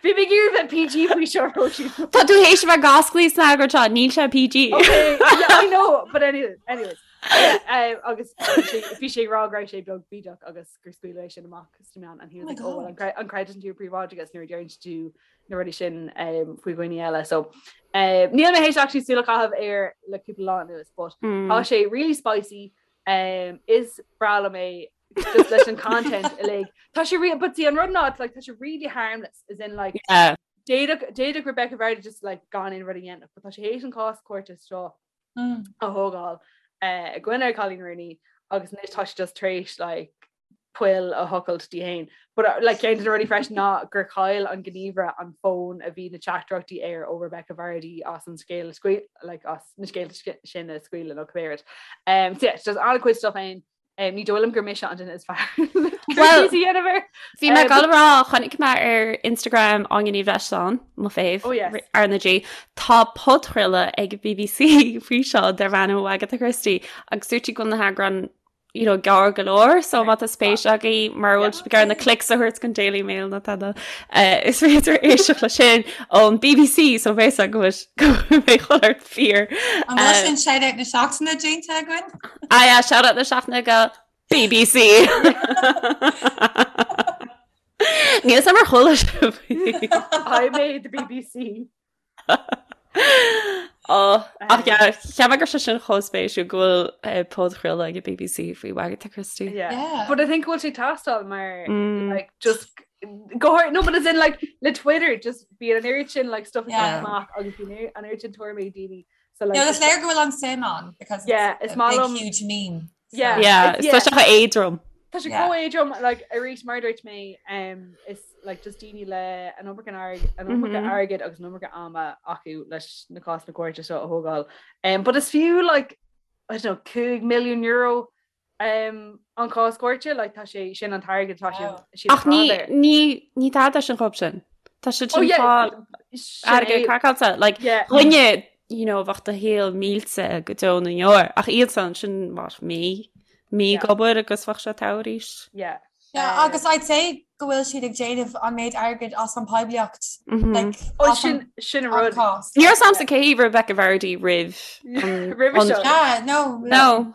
Bhí mé ag iarraidh bheith PG faoi seo Róisín. Tá tú théis a bheith ag oscailt sna eagraí seo, níl sé PG. Okay, yeah, I know, but anyway, anyways. Yeah, um, agus bhí sé ag rá go raibh sé beag bídeach agus gur scaoileadh é sin amach sna meáin and he was Oh my like, oh, well, God. an cre- an gcreideann tú i bpríobháideachas nuair a deireann tú na rudaí sin um, faoi dhaoine eile. So um, níl mé théis actually súil a chaitheamh air le cúpla lá anuas, but Mm. tá sé really spicy. Um, is breá liom é just leis an content uilig. Tá sé re but see an rud ná it's like tá sé really harmless as in like Yeah. d'fhéadfadh d'fhéadfadh Rebecca Vardy just like gan aon rud a dhéanamh, but tá sé théis an cás cúirte seo Mm. a thógáil eh, i gcoinne Colleen Rooney agus anois tá sé just tar éis like poill a thochailt di féin. But uh, like ceann de na rudaí freisin ná gur chaill an gníomhaire an fón a bhí na teachtaireachtaí air ó Rebecca Vardy as an scéal a scaoil like as na scéalta sin a scaoileadh nó cibé rud. Um, so yeah, it's just an-chuid stuff ann. Um, ní dóigh liom gur mise an duine is fearr. Well, Well, dhéanamh Bhí mé ag dul a rá chonaic mé ar Instagram Áine Ní Bhreisleáin, mo fave, Oh, yes. R na G. Tá podchraoladh ag BBC faoi seo darb ainm Wagatha Christie agus dúirt sí go bhfuil na heagráin you know, gearr go leor, so má tá spéis agaibh mar bhfuil sibh ag iarraidh na clicks a thabhairt don Daily Mail nó tada eh, is féidir éisteacht leis sin ón BBC so bheidh go bhfuil go mbeidh chuile shórt fíor. An bhfuil sin shout out na seachtaine déanta againn? Ah yeah, shout out na seachtaine go BBC. Níl 'fhios a'm ar chuala sibh. I made the BBC. Oh, ach yeah, cheap mé go raibh sé sin chomh spéisiúil go bhfuil eh, podchraoladh ag an BBC faoi Wagatha Christie. Yeah. Yeah. But I think go bhfuil sé ag teastáil mar Mm. like just go hard no but as in like le Twitter just bíonn an oiread sin like stuff ag Yeah. teacht amach agus bíonn an oiread sin tuairimí ag daoine so like No, is léir go bhfuil an suim ann because Yeah, it's is a maith big liom- huge meme. So- Yeah. Yeah, It's- is tá sé chomh éadrom. Tá sé Yeah. chomh éadrom like arís mar a dúirt mé um, is like just daoine le an iomarca airg- an iomarca Mhm. airgid agus an iomarca ama acu leis na cásanna cúirte seo a thógáil. Um, but is fiú like I don't know 5 milliún euro um, an cás cúirte like tá sé sin an t-airgead tá sé Wow. siad Ach ní ag fáil air. ní ní tada sin chomh sin. Tá sé Oh sin yeah, fáil sin airgead é. craiceáilte like Yeah. dhuine you know, bheadh do shaol millte go deo na ndeor ach iadsan sin mar mí mí Yeah. ag obair agus bheadh sé togha arís. Yeah. Yeah, Um, agus I'd say go bhfuil siad ag déanamh an méid airgid as an poiblíocht Mhm. like, Oh, as an sin sin an an rud. cás. Ní raibh 'fhios a'msa cé hí Rebecca Vardy roimh an- Roimhe an- seo. Yeah, no. No,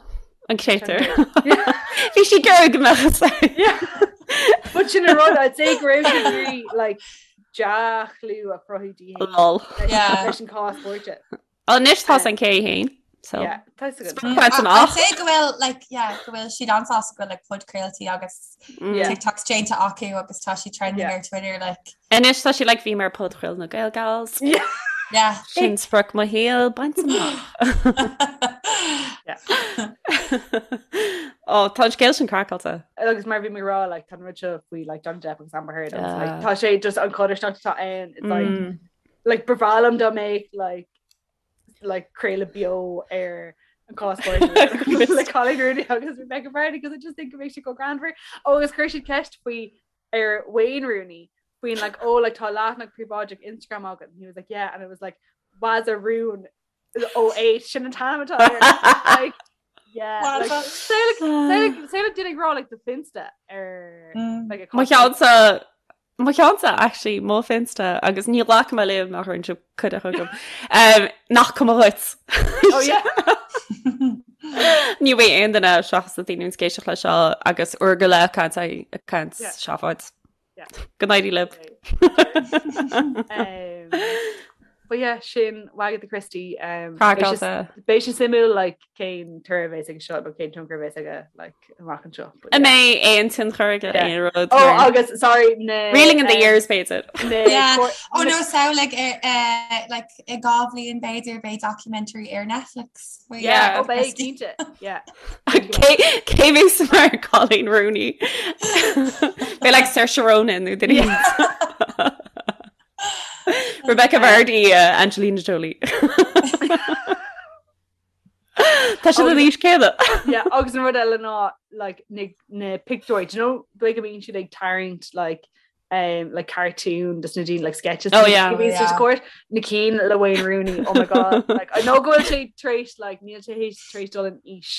an créatúr. Yeah. Bhí sí gur go mbeadh sé. Yeah. But sin an rud I'd say go raibh sí ag iarraidh, like dea-chlú a chruthú di féin Lol. leis Yeah. leis an cás cúirte. Anois tá an cé féin. So Yeah, tá a fhios agat. Sprioc amach. I'd say go bhfuil like yeah, go bhfuil siad an-sásta go bhfuil like podchraoltaí agus Mm. Yeah. TikToks déanta acu agus tá sí trending Yeah. ar Twitter like Anois tá sí like bhí mé ar podchraoladh na Gael Gals. Yeah. yeah. Sin sprioc mo shaoil bainte amach. Yeah. Oh, tá an scéal sin craiceáilte. Agus mar bhí mé ag rá like, tá an rud seo faoi like, Johnny Depp agus Amber Heard agus like, tá sé just an chodarsnacht atá ann it's like, mm. like ba bhreá liom dá mbeadh like, like craoladh beo ar an cás le Coleen Rooney agus Rebecca Vardy because I just think it makes you go greannmhar. Oh, agus chuir siad ceist faoi ar Wayne Rooney faoin like oh like tá leathanach príobháideach Instagram agat and he was like yeah and it was like was a rún 08 sin an t-ainm atá air. Like yeah like say like duine ag rá like do Finsta ar mm. like a Mo cheannsa Mo cheannsa actually mo Finsta agus ní ghlacfaidh mé libh nach raibh sibh cuireadh chugam. Um, nach cuma dhuit. Oh yeah. Ní bheidh aon duine seachas na daoine ag éisteacht leis seo agus uair go leith caint caint seafóid. Go n-éirí libh. Um, but yeah, sin Wagatha Christie. Um, beidh sé suimiúil like, cén toradh a bheas aige seo nó cén tionchar a bheas aige like, amach anseo. An mbeidh aon tionchar aige aon rud? Oh, agus sorry na Reeling in the um, years b'fhéidir. Yeah. Oh no, samhlaigh eh, like i 2 bhliain b'fhéidir beidh documentary ar Netflix. Yeah, oh, beidh cinnte. Yeah. Cé bheas mar Coleen Rooney? Beidh like Saoirse Ronan nó duine. Rebecca Vardy, uh, Angelina Jolie. Tá siad an aois céanna. Yeah, agus an rud eile ná like, na, na pictiúir, do you know, dóigh go mbíonn siad ag tarraingt like, um, like cartoon des na daoine like sketches oh, yeah. oh, yeah. court na cinn le Wayne Rooney oh my god like I know go bhfuil sé tar éis like níl sé tar éis dul in aois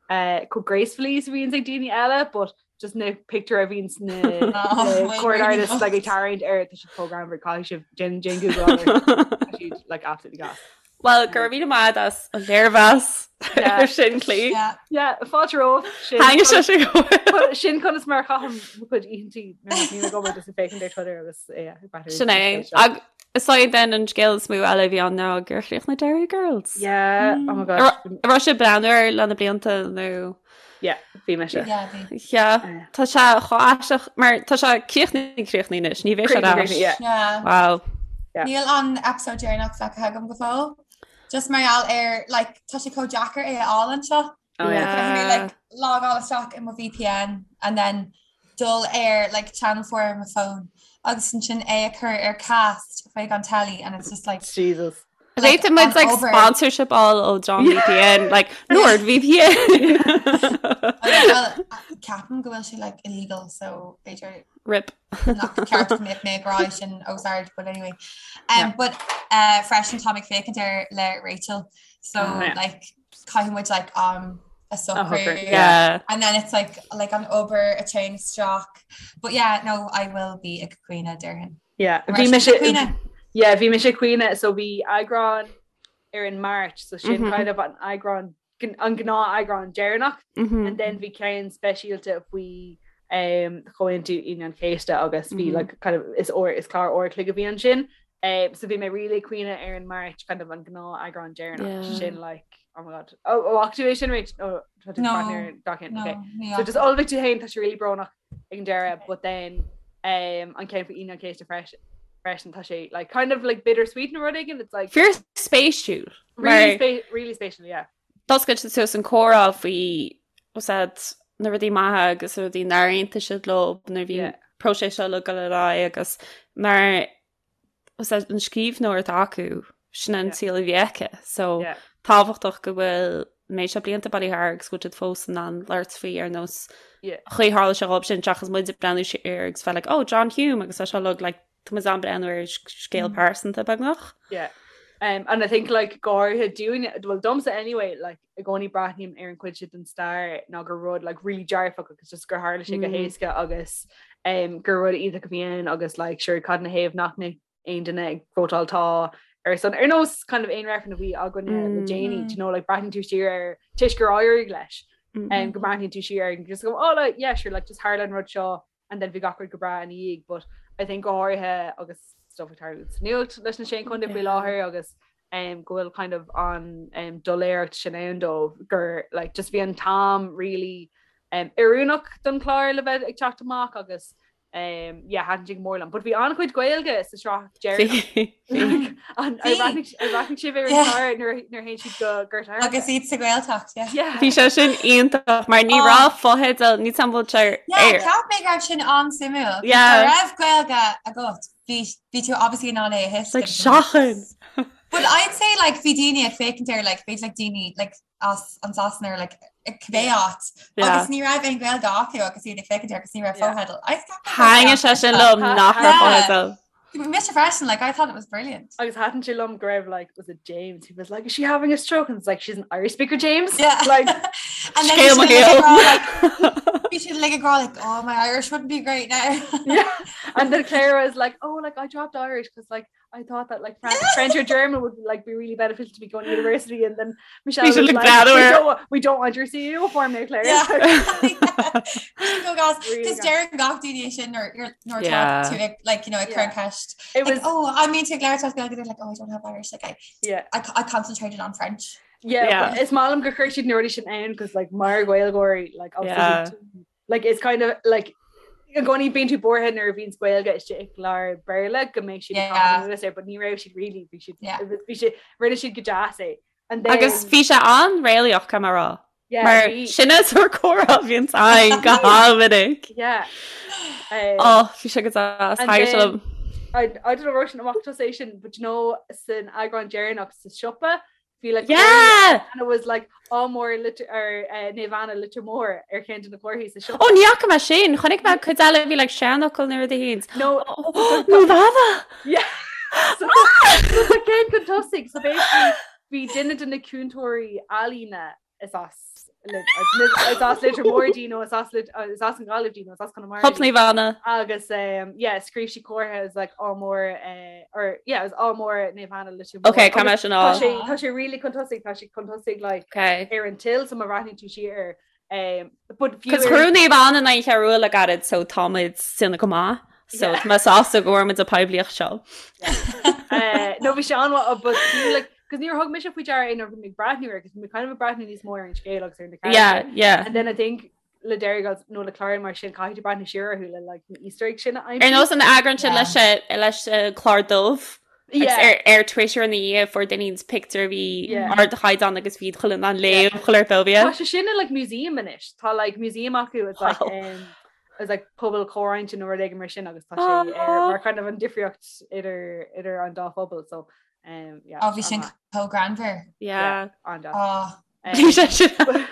uh, chomh gracefully is a bhíonn ag daoine eile but just na pictiúir a bhíonn na oh, court artists like ag tarraingt air tá siad chomh greannmhar caithfidh sibh déan déan Google siad like absolutely gas. Well, go raibh míle maith as an léirmheas ar sin Clí. Yeah, fáilte romhat. Thaitnigh sé sin go mór. Sin conas mar a chaithim mo chuid oícheantaí nuair nach mbím ag obair just ag féachaint ar Twitter agus yeah, ag breathnú Sin é. Ag is é then an scéal is mó eile a bhí ann ná gur chríochnaigh Derry Girls. Yeah, oh my gosh. An raibh sibh ag breathnú air le na blianta nó? Yeah, bhí mise. Yeah, bhí. Yeah, tá sé chomh aisteach mar tá sé críochnaithe críochnaithe anois, ní bheidh sé ar ais. Yeah. Yeah. Wow. Yeah. Níl an episode deireanach feicthe agam go fóill. Just mar gheall ar like tá sé chomh deacair é a fháil anseo. Oh yeah. Caithfidh mé like logáil isteach i mo VPN and then dul ar like channel 4 ar mo phone agus ansin é a chur ar cast chuig an telly and it's just like Jesus. Like, Féadfaidh muid an like obair. sponsorship fháil ó John VPN, like Nord VPN. Well, ceapaim go bhfuil sé like illegal so b'fhéidir Rip. nach ceart go mbeadh mé ag rá sin os ard but anyway. Um, but uh, freisin tá mé ag féachaint air le Rachel so Ah, yeah. like caithfidh muid like um a socrú Yeah. and then it's like like an obair a téann isteach but yeah no I will be ag caoineadh déarfainn. Yeah, An bhí raibh mise sibh ag caoineadh? Yeah, bhí mise ag caoineadh so bhí eagrán ar an Máirt so sin Mhm. kind of an eagrán an gnáth eagrán deireanach Mhm. and then bhí ceann speisialta faoi um, Chomhaontú Aoine an Chéasta agus bhí Mhm. like, kind of is uair is clár uair a chloig a bhí ansin. Um, so bhí mé really ag caoineadh ar an Máirt kind of an gnáth eagrán deireanach Yeah. sin like oh my god. Oh, oh bhfaca tú é sin Rach? Oh, tá tú No. partner gach ceann, No, okay. ní So just fhaca. ullmhaigh tú féin tá sé really brónach ag an deireadh but then um, an ceann faoi Aoine an Chéasta freisin freisin tá sé like kind of like bittersweet nó rud éigin it's like Fíor spéisiúil. really, Mar spe really spéisiúil yeah. D'oscail siad suas an comhrá faoi was that na rudaí maithe agus na rudaí nár aontaigh siad leo nuair a bhí an próiseas seo ag dul ar aghaidh agus mar was that an scríbhneoir atá acu sin an saol a bhí aici so tábhachtach go bhfuil méid seo blianta bailithe thart agus go bhfuil siad fós in ann labhairt faoi ar nós chaoi tharla sé dhóibh sin seachas muid ag breathnú siar agus bheith like oh John Hume agus tá seo like like Tá muid ag breathnú ar scéal pearsanta beagnach. Yeah. Um, and I think like go háirithe dúinne, well domsa anyway, like i gcónaí breathnaím ar an chuid sin den stair ná gur rud like really dearfach agus just gur tharla sé go Mm. héasca agus um, gur rud iontach a bhí ann agus like sure cad ina thaobh nach mbeadh aon duine ag vótáil tá ar son ar nós kind of aon reifreann a bhí againne le Mm. déanaí, Mm. do you know, like breathnaíonn tú siar ar toisc gur éirigh leis Mm. um, go mbreathnaíonn tú siar ar and just go oh like yeah sure like just tharla an rud seo and then bhí gach rud go breá ina dhiaidh but I think go háirithe agus stuff ag tarlú sa nuacht leis na Sé Chontae faoi láthair agus um, go bhfuil kind of an um, doiléireacht sin ann dóibh gur like, just bhí an t-am really um, oiriúnach don chlár le bheith ag teacht amach agus Um, yeah, thaitin sé go mór liom. But bhí an-chuid Gaeilge sa sraith deireanach. An ar bhreathnaigh ar bhreathnaigh sibh ar an chlár nuair nuair a théann siad go Gort an Agus iad sa Ghaeltacht, yeah. Yeah. Bhí sé sin iontach mar ní Oh. raibh fotheidil ní tam bhfuil sé Yeah, ar. cheap mé go raibh sin an-suimiúil. Yeah. Dá raibh Gaeilge agat, bhí bhí tú obviously in ann é a It's like thuiscint. seachain. But I'd say like bhí daoine ag féachaint air like b'fhéidir like daoine like as an Sasana or like cibé áit Yeah. agus ní raibh aon Ghaeilge acu agus iad ag féachaint air agus ní raibh Yeah. fotheidil. I cheap mé go raibh Thaitin sé sin liom nach raibh Yeah. fotheidil. Mise freisin, like I thought it was brilliant. Agus thaitin sé liom go raibh like was it James who was like is she having a stroke and it's like she's an Irish speaker James Yeah. like and then Scéal mo bhí siad like ag rá, like, shaoil. bhí siad like ag rá like oh my Irish wouldn't be great now. yeah and then Claire was like oh like I dropped Irish because like I thought that like French, French or German would like be really beneficial to be going to university and then Michelle We should was look like, that we over. don't, wa- we don't want your CEO form now Claire Yeah. Go gas Really Because gas. deireann gach duine sin or you're nor Yeah. to it, like you know ag Yeah. cur an ceist it like was oh I mean to Claire talk they're like oh I don't have Irish like I yeah I, I concentrated on French yeah, Yeah. but is maith liom gur chuir siad na rudaí sin ann because like mar Ghaeilgeoirí like obviously Yeah. like it's kind of like i gcónaí bíonn tú buartha nuair a bhíonn Gaeilge istigh i gclár Béarla go mbeidh siad Yeah. ag caitheamh anuas air, but ní raibh siad really bhí siad Yeah. bhí siad rinne siad go deas é and then Agus bhí sé an-réalaíoch caithfidh mé a rá. yeah, Mar bhí- sin is ar comhrá a bhíonn againn go han-mhinic. yeah um, Ó bhí sé go deas And thaitin sé then- liom. I, I don't know raibh sin amach tusa é sin but you know san eagrán deireanach sa siopa bhí like Yeah! and it was like ádh mór Leitir ar uh, Naomh Anna Leitir Móir ar cheann de na comharthaí sa siopa. Ó ní fhaca mé sin, chonaic mé cuid eile bhí like seanfhocal nó rud éigin. No Naomh Anna! yeah. So so tá ceann chun tosaigh so basically bhí duine de na cúntóirí ealaíne is as is as Leitir Móir di nó is as is as an Ghaillimh di nó is as Conamara Hup di. Naomh Anna. agus um, yeah, scríobh sí comhartha is like ádh mór uh, or yeah, is ádh mór Naomh Anna Leitir Móir. Ok, caithfidh mé sin Tá fháil. sé tá sé really chun tosaigh tá sé chun tosaigh like Ok. ar an till so má bhreathnaíonn tú siar air um, but fiú Cos ar- chuir Naomh Anna na cheú le gairid so táimid sinna go maith. So Yeah. tá mé sásta go bhfuair muid an poiblíocht seo. Uh, no bhí sé an-mhaith but fiú like cos níor thug mise faoi deara é nuair a bhí mé ag breathnú air cos bhí mé kind of ag breathnú níos mó ar an scéal agus ar na Yeah, characters. yeah. And then I think le Derry Girls nó le cláir mar sin caithfidh tú breathnú siar orthu le like na Easter eggs sin a aimsiú. Ar nós an eagrán sin Yeah. leis eh, leis eh, clár dubh. Agus Yeah. ar ar Twitter ina dhiaidh fuair duine éigin pictiúr a bhí Yeah. ardchaighdeán agus bhí chuile an léamh chuile Tá bóbia. sé sin in like museum anois. Tá like museum acu it's like Wow. um, it's like pobal comhroinnte nó rud éigin mar sin agus tá sé ar Aw. mar kind of an difríocht idir idir an dá phobal so um, yeah, Oh bhí sin an-mhaith. chomh greannmhar Yeah. an-deas. Oh Um, Bhí sé sin.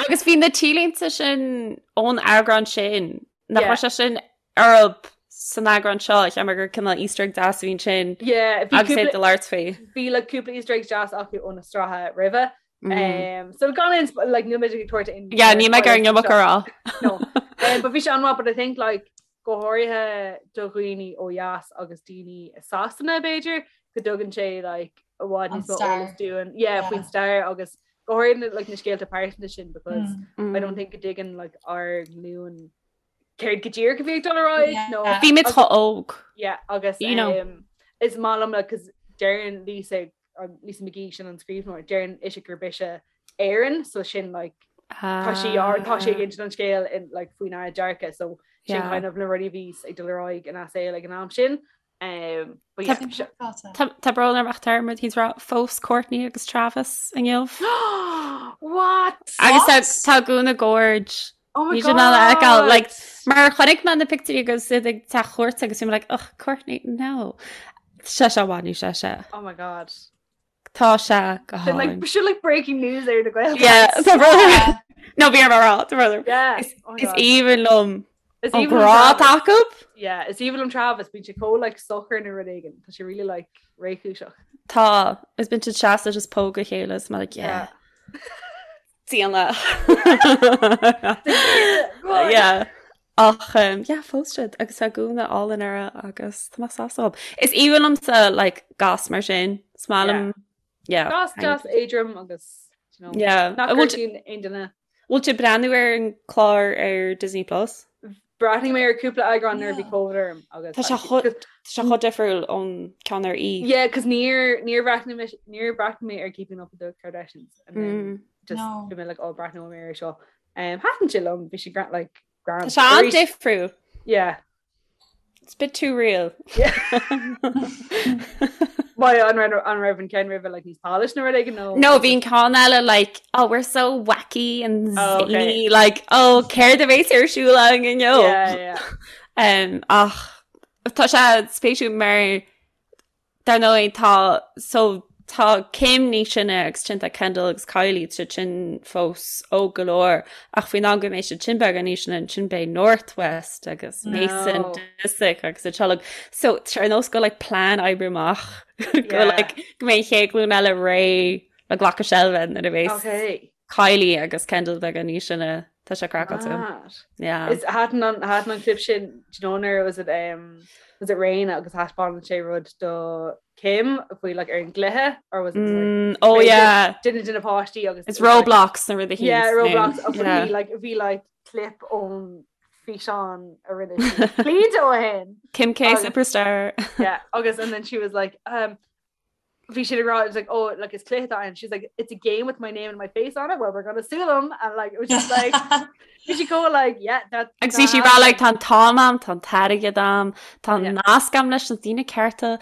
Agus bhí na T-línte sin ón eagrán sin nach Yeah. raibh sé sin orthu san eagrán seo cheap mé gur cineál Easter egg deas a bhí ansin Yeah, bhí agus é cúpla do labhairt faoi. bhí like cúpla Easter eggs deas acu ó na sraithe roimhe. Mm. Um, so gan aon sp- like níl mé ag tabhairt aon Yeah, ní mé ar an iomarca a rá. No. Um, but bhí sé an-mhaith, but I think like go háirithe do dhaoine ó dheas agus daoine i Sasana b'fhéidir go dtugann sé like i bhfad An níos mó stair. eolas dúinn yeah, Yeah. faoin stair agus go háirithe like na scéalta pearsanta sin because mm. I don't think go dtuigeann like ár nglúin céard go díreach a bhí ag dul ar aghaidh Yeah. nó Bhí muid chomh óg. yeah, agus You know. um, is maith liom like, 'cause deireann Lisa um, Lisa McGee sin an scríbhneoir deireann ise gurb ise Éireann so sin like tá sí ar tá sé ag insint an scéal in like faoinár dearcadh so sin Yeah. kind of na rudaí a bhí ag dul ar aghaidh ina saol ag an am sin um, but yeah, Sin se- craiceáilte. Tá tá brón orm ach tá muid ag rá phós Courtney agus Travis inniu. What? Agus What? tá tá gúna gorge. Oh my Ní sin ala fheiceáil, god. like, Mar chonaic mé na pictiúirí agus iad ag teach chuairt agus bhí mé like, ugh, Courtney, no. Sé sé bhainú sé sé. Oh my god. Tá sé go Sin like hálainn. sin like breaking news ar na Gael. Yeah, tá brón orm. Yeah. No, bhí orm a rá, tá brón orm. Yeah. Is Oh my is God. aoibhinn liom Is an aoibhinn liom grá Travis. acu. Yeah, is aoibhinn liom Travis, bíonn sé chomh like socair nó rud éigin. Tá sé really like réchúiseach. Tá, is bíonn siad seasta just póg a chéile is mé like, yeah. Déana. Yeah. Ach um, yeah, phós siad agus tá gúna álainn uirthi agus tá mé sásta dhób. Is aoibhinn liomsa like gas mar sin. Is maith liom yeah. Gas deas éadrom agus you know, Yeah. nach An bhfuil gortaíonn aon duine. bhfuil tú ag breathnú ar an clár ar Disney Plus? Bhreathnaigh mé ar cúpla eagrán nuair a bhí Yeah. COVID orm agus Tá sé actually- chomh- tá sé chomh difriúil ón ceann ar E. Yeah, cos níor níor bhreathnaigh mé níor bhreathnaigh mé ar Keeping Up with the Kardashians and then Mm. just No. bhí mé like oh breathnóidh mé air seo. Um, thaitin sé liom, bhí sé gra- like grand. Tá sé an-difriúil. Yeah. It's a bit too real. Why an raibh an raibh an ceann roimhe like níos polished nó rud éigin nó? No, bhí an ceann eile like, oh, we're so wacky and Oh, okay. zany, like, oh, céard a bheas ar siúl againn inniu? Yeah, yeah. Um, ach tá sé spéisiúil mar Dar ndóigh tá so tá Kim níos sine agus ansin tá Kendall agus Kylie tá siad sin fós óg go leor ach faoin am go mbeidh siad sin beagán níos sine ansin beidh North West agus Mason No. Disick agus a teaghlach. So tá sé ar nós go like plean oibre amach go Yeah. like go mbeidh an chéad ghlúin eile réidh le glacadh seilbhe nuair a bheas Okay. Kylie agus Kendall beagán níos sine tá sé craiceáilte. Mad. Yeah. Is thaitin an thaitin an clip sin do you know nuair was it um was it Reign agus thaispeáin sé rud do Kim faoi like ar an gcluiche or was it like, Mm, oh Ray yeah. duine de na páistí agus It's it was, like, Roblox na rudaí Yeah, Roblox agus Yeah. bhí like bhí like clip ón físeán a rinne sí blianta ó shin. Kim K Agus- Superstar. Yeah, agus and then she was like um bhí siad ag rá, it was like, oh, like is cluiche atá ann. She's like, it's a game with my name and my face on it. Well, we're gonna sue them. And like, it was just like, bhí sí chomh like, yeah, that. Agus bhí sí ag rá like tá an t-am a'm, tá an t-airgead a'm, tá Yeah. nasc a'm leis na daoine cearta,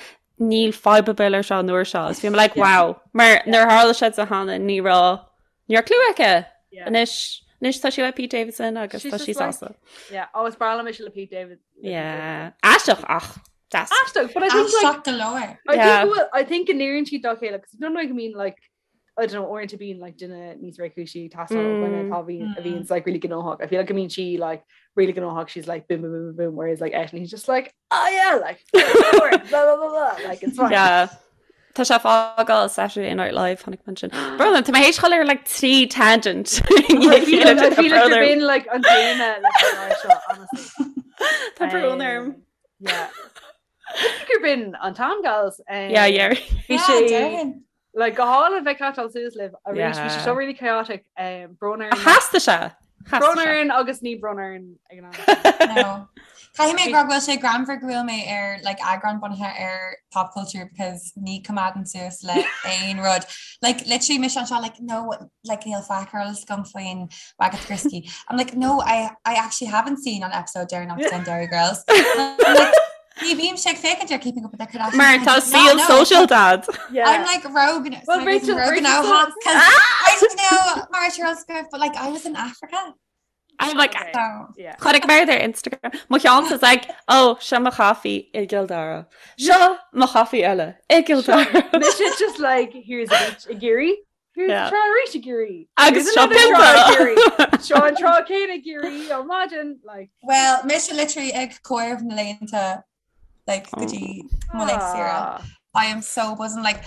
níl fadhb ar bith leis seo an uair seo. Agus bhí mé like, wow. Mar nuair a tharla sé di cheana ní raibh ní raibh clue aici. Yeah. Anois, anois tá sí le Pete Davidson agus She's tá sí just like- sásta. Yeah, oh, is breá liom mise le Pete David. le Pete Yeah. Aisteach ach deas. Davidson. Aisteach, but I think like, Aisteach go leor. I Yeah. think well, I think go n-oireann siad dá chéile because don't know I mean like I don't know uaireanta bíonn like duine níos réchúisí ag teastáil ó dhuine Mm. atá bhíonn a Mm. bhíonns like really gnóthach. I feel like go mbíonn sí like really gnóthach she's like boom boom boom boom boom whereas like eisean he's just like oh yeah like blah blah blah blah like it's fine. Yeah. Tá sé ag fágáil Saturday Night Live tháinig man sin. Brother, tá mé théis dul ar like trí tangent. I feel like, I feel like you're being like an téama leis an áit seo, honestly. Tá brón orm. Um, Yeah. Gur b'in an t-am gals. Um, Yeah, yeah. Bhí Yeah, sé déarfainn. like go hálainn bheith ag catch-áil suas libh arís bhí sé Yeah. seo really chaotic um, brón orainn Theastaigh sé. brón Theastaigh sé. orainn agus ní brón orainn ag an am. No. Caithfidh mé go bhfuil sé greannmhar go bhfuil mé ar like, eagrán bunaithe ar pop culture because ní choimeádaim suas le aon rud. Like literally mise anseo like no like níl faic ar eolas agam faoin Wagatha Christie. I'm like no I, I actually haven't seen an episode deireanach den Derry Girls. I'm like, Ní bhímse ag féachaint ar Keeping Up with the Kardashians. Mar I tá did not saol know. sóisialta a'd. Yeah. I'm like rogue. Well, Well, Rachel- Rachel, Rachel now, says- because I don't know Mara Charles but like I was in Africa, I'm like Okay. so Yeah. Chonaic mé ar Instagram. Mo cheann is like, oh, seo mo chaife i gCill Dara. Seo mo chaife eile i gCill Dara. Mise just like here's a beach i gCiarraí. Here's Yeah. yeah. trá arís i gCiarraí. Agus Here's seo another trá i pionta. gCiarraí. Seo an trá céanna i gCiarraí ó maidin like well, mise literally ag comhaireamh na laethanta like go dtí mo laethanta saoire. ah, I am so buzzing like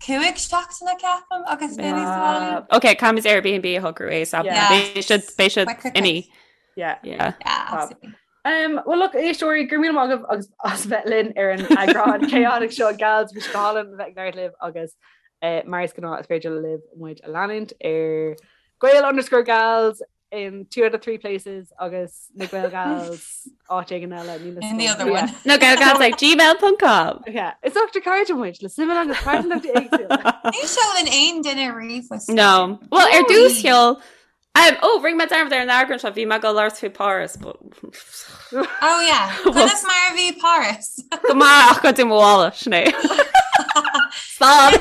cúig seachtaine ceapaim agus Yeah. mé sa Ok, caithfimid Airbnb a shocrú ASAP. Yeah. Beidh siad beidh siad Quick, quick, imithe. yeah. Yeah. Yeah, absolutely. Um, well look éisteoirí go raibh míle maith agaibh agus as bheith linn ar an eagrán chaotic seo gals bhí sé go hálainn bheith ag labhairt libh agus eh, mar is gnáth is féidir libh muid a leanúint ar Gael underscore gals in two out of three places agus na Gael gals áit éigin eile níl a In the fhios other agam. one. Na Gaelgals ag gmail.com. Yeah. Is ochtar cairde muid le suim agus pearsantachtaí éagsúla. Ní sheolann aon duine ríomhphost. No. Well, ar No. dtús sheol Um, oh, rinne mé dearmad ar an eagrán seo bhí mé ag labhairt faoi Paris, but Oh yeah. Conas mar a bhí Paris? go maith ach go dtí mo mhála, sin é. Stop.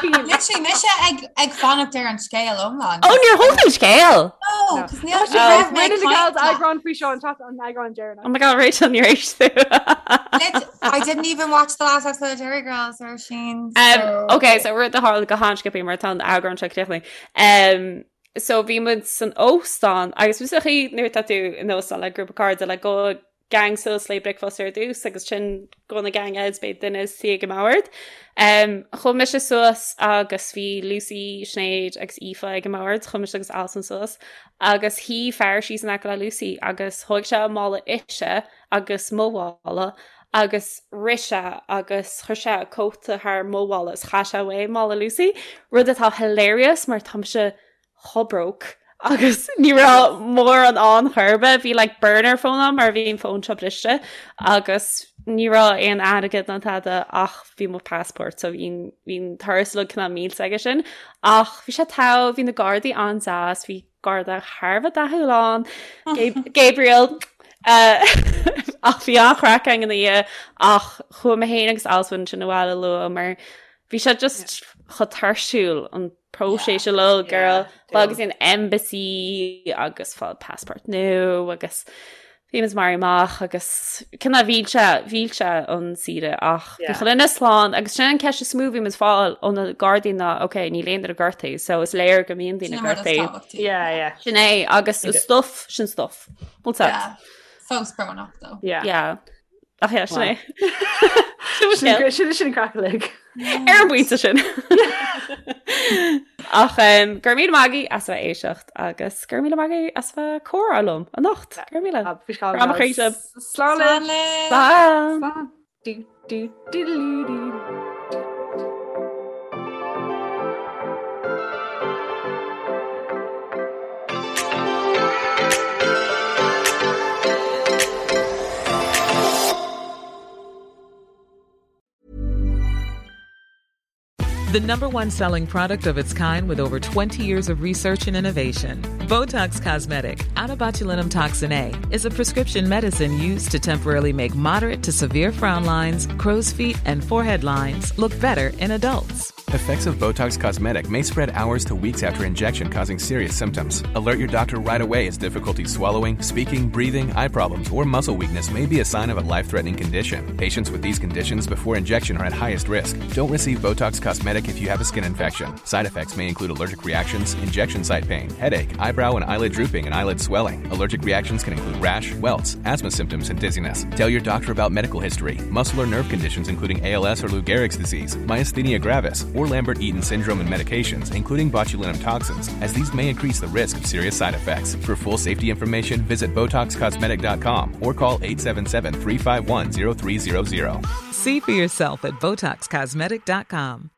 Literally mise ag ag fanacht ar an scéal iomlán. Oh, níor thóg an scéal! No, No. 'cause níl Oh, raibh mé Rinne na gals ag caint eagrán faoi seo an t- an eagrán deireanach. Oh my god, Rachel, níor éist tú. leat. I didn't even watch the last episode of Derry Girls or Sheen. Um, so... okay, so rud a tharla go han-sciobtha mar tá an eagrán seo críochnaithe. Um, so bhí muid san óstán agus bhí sa chaoi nuair atá tú in óstán le grúpa cairde le gabhann gang suas le bricfeasta ar dtús agus ansin gabhann an gang eile beidh duine suí ag an mbord. Um, chuaigh mise suas agus bhí Lucy, Sinéad agus Aoife ag an mbord, chuaigh mise agus Alison suas agus shuigh fear síos in aice le Lucy agus thóg sé a mála ise agus mo mhála agus rith sé agus chuir sé a cóta thar mo mhála is chaith sé uaidh mála Lucy, rud atá hilarious mar tá mise chomh broke agus ní raibh mórán ann chor ar bith, bhí like burner phone ann mar bhí an fón seo briste agus ní raibh aon airgead ná tada ach bhí mo passport so bhí bhí an turas uilig cineál millte aige sin ach bhí sé togha, bhí na gardaí an-deas, bhí garda thar a bheith dathúil ann, Gabriel. Ach bhí an-chraic againn ina dhiaidh ach chuaigh mé féin agus Alswyn ansin abhaile luath mar bhí sé just chomh tuirsiúil an próiseas uilig girl agus an embassy agus fáil passport nua agus bhí muid maraithe amach agus cineál mhill sé mhill sé an saoire ach bhí chuile dhuine slán agus sin an ceist is mó bhí muid fáil ó na gardaí ná ok níl aon duine gortaithe so is léir go mbíonn daoine gortaithe. Yeah, yeah. Sin é agus is stuff sin stuff. Bhfuil yeah. Fós brónach though. Yeah. Yeah. Ach yeah, sin é. Sin sin craic uilig. Ar an bpointe sin. Ach um, go raibh míle maith agaibh as a bheith ag éisteacht agus go raibh míle maith agaibh as a bheith ag comhrá liom anocht. Go raibh míle. Grá mo chroí sibh. Slán Slán. Slán. Du, du, du, du, du, du. The number one selling product of its kind with over 20 years of research and innovation. Botox Cosmetic, onabotulinumtoxinA, is a prescription medicine used to temporarily make moderate to severe frown lines, crow's feet, and forehead lines look better in adults. Effects of Botox Cosmetic may spread hours to weeks after injection, causing serious symptoms. Alert your doctor right away as difficulty swallowing, speaking, breathing, eye problems, or muscle weakness may be a sign of a life threatening condition. Patients with these conditions before injection are at highest risk. Don't receive Botox Cosmetic if you have a skin infection. Side effects may include allergic reactions, injection site pain, headache, eyebrow and eyelid drooping, and eyelid swelling. Allergic reactions can include rash, welts, asthma symptoms, and dizziness. Tell your doctor about medical history, muscle or nerve conditions including ALS or Lou Gehrig's disease, myasthenia gravis, or Lambert-Eaton syndrome and medications, including botulinum toxins, as these may increase the risk of serious side effects. For full safety information, visit BotoxCosmetic.com or call 877-351-0300. See for yourself at BotoxCosmetic.com.